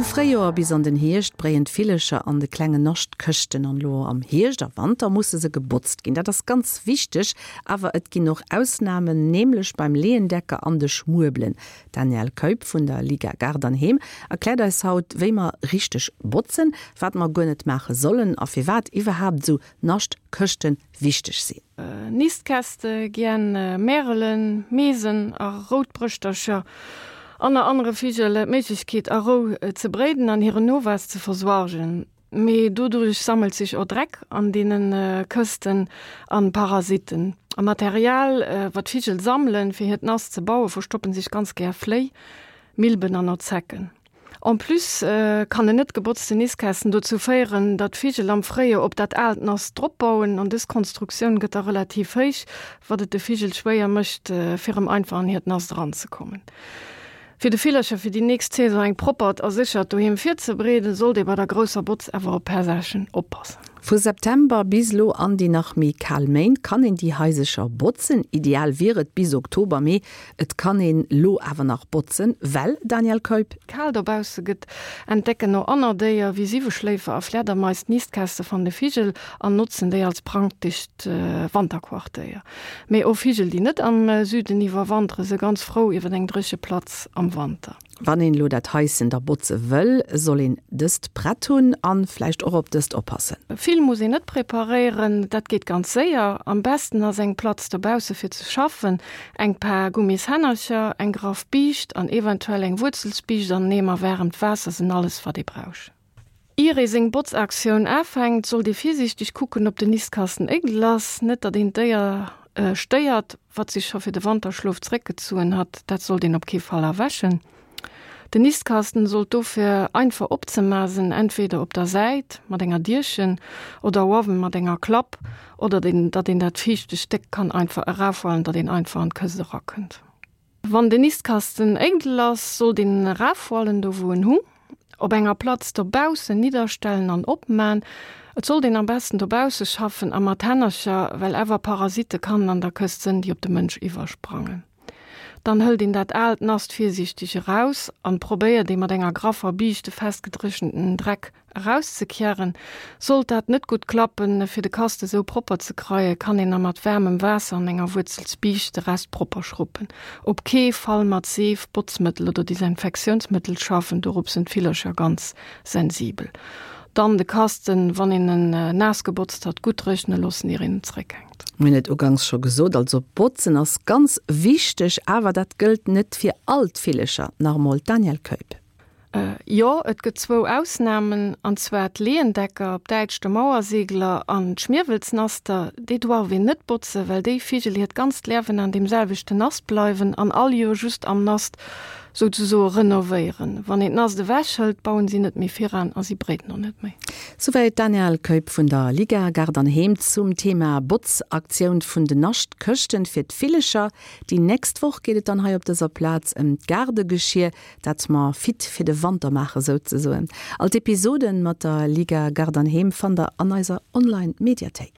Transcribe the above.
Fréijoer bis an den Hierscht bréien d'Villecher an de klengen Naschtkëschten an elo am Hierscht a Wanter musse se gebotzt ginn. Dat ass ganz wichteg, awer et ginn och Ausnamen, nämlech beim Leeëndecker an de Schmuebelen. D'Danièle Keup vun der Liga Gaart an Heem erkläert eis haut, wéi mer richteg botzen, wat mer guer net maache sollen a firwat iwwerhaapt esou Naschtkëschte wichteg sinn. Nistkäste gien Märelen, Meesen a Routbrëschtercher an a anere Vigel d'Méiglechkeet a Rou ze bréiden an hiren Nowuess ze versuergen. Mee doduerch sammelt sech och Dreck an deene Kësten an Parasitten. Am Material wat d'Vigel sammelen fir hiert Nast ze bauen, verstoppen sech ganz gär Fléi, Milben an och Zecken. En plus kann en net gebotzten Nistkasten dozou féieren, datt d'Vigel am Fréijoer op dat aalt Nast drop bauen an dës Konstruktioun gëtt da relativ héich, wat et de Vigel schwéier mécht, fir erëm einfach an hiert Nast eranzekommen. Fir de Villercher fir déi nächst Saison eng proppert a séchert Doheem virzebereeden, sollt ee bei der grousser Botz awer op per Saachen oppassen. Vu September bis elo an déi nach méi kal Méint kann een déi Haisercher botzen. Ideal wier et bis Oktober, mee et kann een lo awer nach botzen, well, Daniel Keup? Kal dobausse gëtt, entdecken och anner Déier wéi Siweschléifer a Flädermais d'Nistkäste van de Vigel an notzen déi als praktescht Wanterquartéier. Mee och Vigel, déi net am Süden iwwerwantere, se ganz frou iwwer eng dréche Platz am Wanter. Wann een elo dat Haischen da botze wëll, soll een dëst prett hunn an vläicht och op dëst oppassen. Vill muss een net preparéieren, dat geet ganz séier. Am besten ass eng Platz dobausse fir ze schaffen, eng Paar Gummishännercher, eng graff Biischt an eventuell eng Wuerzelsbiischt an en Eemer waarmt Waasser sinn alles wat ee brauch. Ier ee seng Botzaktioun afänkt, sollt ee virsiichteg kucken, ob den Nistkasten éidel ass, net datt een d'Déier stéiert, wat sech scho fir de Wanterschlof zeréckgezuen hat. Dat sollt een op kee Fall erwächen. Den Nistkasten sollt dofir einfach opzema sinn, entweder op der Säit mat enger Dierchen oder uewen mat enger Klapp, oder datt een dat viischte Stéck kann einfach erafhualen, datt een einfach an d'Këscht erakënnt. Wann den Nistkasten éidel ass, sollt een en erafhualen, do wou en hung, op enger Platz dobaussen nidderstellen an opman. Et sollt een am besten dobausse schaffen a mat Hännercher, well awer Parasitte kannen an der Këscht sënn, déi op de Mënsch iwwersprangen. Dann hëlt een dat aalt Nast virsiichteg eraus an probéiert ee mat enger graffer Biischt de festgedréchenten Dreck Erauszekieren. Sollt dat net gutt klappen, fir de Kast esou propper ze kreien, kann een na mat waarmem Waasser an enger Wuerzelsbiischt de Rest propper schruppen. Op kee Fall mat Seef, Botzmëttel oder Desinfektiounsmëttel schaffen, dorop sinn d'Villercher ganz sensibel. Dann de Kasten, wann een en naass gebotzt hat, gutt dréchne loossen ier een en zréckhänkt. Mir hunn et ugangs scho gesot, also botzen ass ganz wichteg, awer dat gëllt net fir all d'Villercher. Nach emol d'Danièle Keup. Jo, et gëtt zwou Ausnamen, an zwar d'Leeëndecker, op Däitsch de Mauersegler, an d'Schmierwelsnaster. Déi doarf een net botzen, well déi Vigel hiert ganzt Liewen an deem selwechten Nast bleiwen an all Joer just am Nast souzesoe renovéieren. Wann een d'Nast ewech hëlt, bauen si net méi viran a si bréiden och net méi. Souwäit d'Danièle Keup vun der Liga Gaart an Heem zum Thema Botzaktioun vun den Naschtkëschten fir d'Villecher. Déi nächst Woch geet et dann hei op dëser Plaz ëm d'Gaardegeschier. Dat mer fit fir de Wanter maachen souzesoen. All d'Episoden mat der Liga Gaart an Heem fannt der an eiser Online Mediathéik.